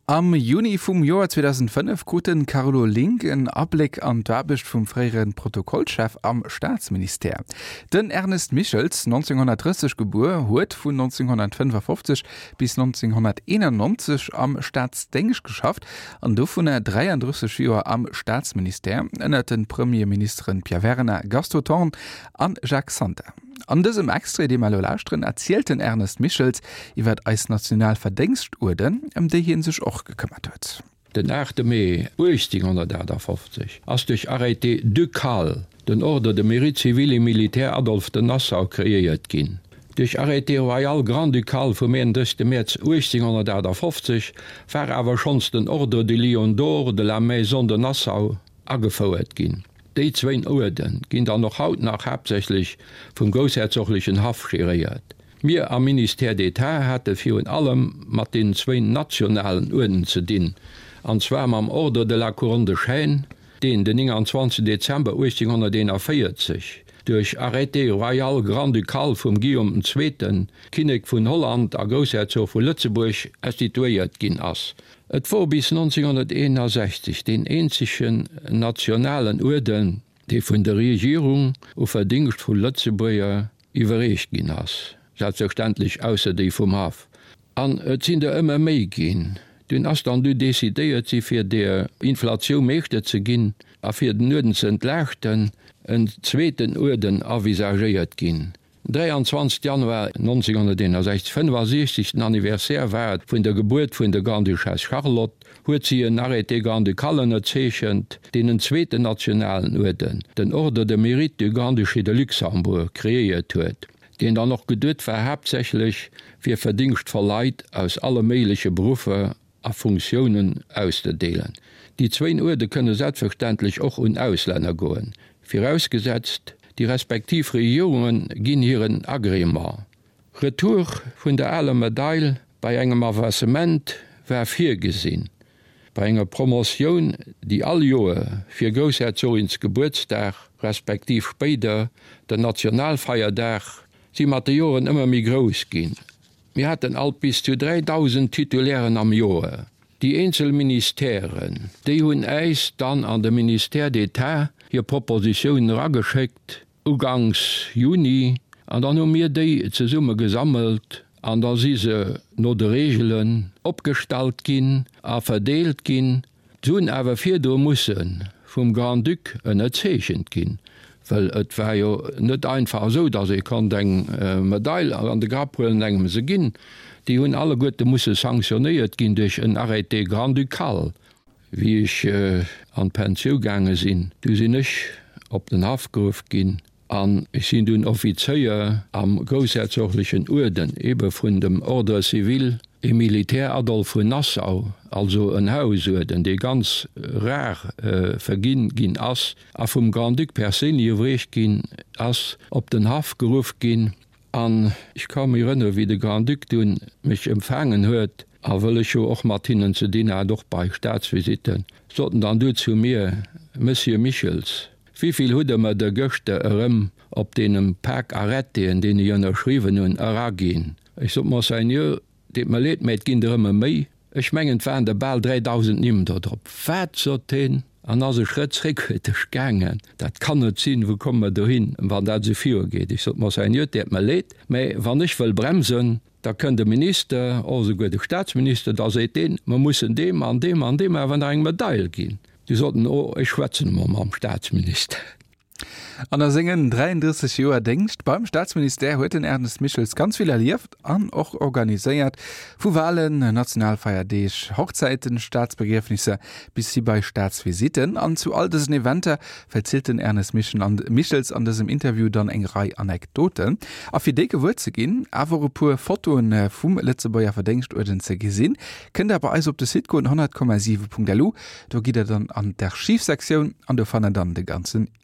Am Juni vum Joer 2005 krut de Carlo Link en Abléck an d'Aarbecht vum fréiere Protokollchef am Staatsministère. Den Ernest Michels, 1930 gebuer, huet vun 1955 bis 1991 am Staatsdéngscht geschafft an dovunner 33 Joer am Staatsministère, ënner de Premierministeren Pierre Werner, Gaston Thorn an Jacques Santer. An dësem Extrait, dee mer elo lauschteren, erzielt den Ernest Michels iwwer eis national Verdéngschtuerden, ëm déi hie sech och gekëmmert huet. Den 8 Mee 1858 ass duerch Arrêté ducal den Ordre de Mérite civil et militaire Adolphe de Nassau kreéiert ginn. Duerch Arrêté royal grand-ducal vum 31 Mäerz 1858 war awer schonns den Ordre du Lion d'Or de la Maison de Nassau agefouert ginn. Déi zwéin Uerde ginn dann och haut nach haaptsächlech vum groussherzoglechen Haff geréiert. Mir am Ministère d'État hate virun allem mat deenen zwéin nationalen Uerden ze dinn, an zwar mam Ordre de la Couronne de Chêne, deen den 29 Dezember 1841 duerch Arrêté royal grand-ducal vum Guillaume den Zweeten, Kinnek vun Holland a Groussherzog vu Lëtzebuerg, instituéiert ginn ass. Et wor bis 1961 deen eenzegen nationalen Uerden, dee vun der Regierung u verdéngschtvoll Lëtzebuerger iwwerreecht ginn ass, selbstverständlech ausser déi vum Haff. An et sinn der ëmmer méi ginn. Dunn ass dann du decidéiert si fir der Inflatioun Meeschter ze ginn a fir den Uerden ze entlaaschten, en zweeten Uerden avisagéiert ginn. 23 Januar 1961, 65. Anniversaire war et vun der Gebuert vun der Grande-Duchesse Charlotte, huet si en Arrêté grand-ducal ënnerzeechent, deen en zweeten nationalen Uerden, den Ordre de Mérite du Grand-Duché de Luxembourg, kreéiert huet, deen dann och geduet war haaptsächlech fir verdéngschtvoll Leit aus alle méigleche Beruffer a Funktiounen auszedeelen. Déi zwéin Uerde kënne selbstverständlech och un Auslänner goen, virausgesetzt déi respektiv Regierunge ginn hiren Agrément. Retour vun der aler Medail bei engem Avancement war virgesinn. Bei enger Promotioun, déi all Joer fir Groussherzoginsgebuertsdag respektiv spéider den Nationalfeierdag, si mat de Joren ëmmer méi grouss ginn. Mir haten alt bis zu 3.000 Titulairen am Joer. Déi eenzel Ministèren, déi hunn äis dann an de Ministère d'État hir Propositiounen erageschéckt, uganks Juni, an dann hu mir déi zesumme gesammelt an da si se no de Reegelen opgestallt ginn a verdeelt ginn. Se hunn awer virdru musse vum Grand-Duc ënnerzeechent ginn, well et war jo net einfach esou, datt ee konnt eng Medail an de Grapp huelen an engem se ginn. Déi hunn alleguerte musse sanktionéiert ginn duerch en Arrêté grand-ducal. Wéi ech an d'Pensiou gaange sinn, du sinn ech op den Haff geruff ginn An ech sinn dunn Offizéier am groussherzoglechen Uerden, ebe vun dem Ordre civil et militaire Adolphe vun Nassau, also en Hausuerden, dee ganz rar verginn ginn ass a vum Grand-Duc perséinlech iwwerreecht ginn ass, op den Haff geruff ginn. An ech ka mech erënnere wéi de Grand-Duc dunn mech empfaangen huet, a wëll ech jo och mat hinnen ze dinn hat, och bei Staatsvisitten, sot en dann du zu mir, Monsieur Michels, Wéivill hutt Der mer der gëschter erëm op deenen Pak Arrêtéen, deen ech ënnerschriwwen hunn, eraginn? Ech sot, Monseigneur, deet mer leed, mä et ginn der ëmmer méi. Ech mengen, et waren der bal 3.000 Nimm do drop. Wat? sot hien an ass e Schrëtt zréckhuerteg gaangen. Dat kann net sinn, wou komme mer dohin, wann dat esou virugeet? Ech sot, Monseigneur, et deet mer leed, mä wann ech wëll bremsen, da kënnt e Minister, och esouguer de Statsminister, da seet deen, mer mussen deem an deem an deem awer nach eng Medail ginn. Déi soten, Oh, ech schwätzen emol mam Staatsminister. An a sengen 33 Joer Déngscht beim Staatsministère huet den Ernest Michels ganz vill erlieft an och organiséiert, vu Walen, Nationalfeierdeeg, Hochzäiten, Staatsbegriefnisser bis hi bei Staatsvisitten. An zu all dësen Eventer verzielt den Ernest Michels an dësem Interview dann eng Rei Anekdoten. A fir déi gewuer ze ginn, awer och e puer Fotoen vum Lëtzebuerger Verdéngschtuerden ze gesinn, kënnt der bei eis op de Site goen, 100,7.lu. Do gitt der dann an d'Archivsektioun an do fannt der dann de ganzen Interview.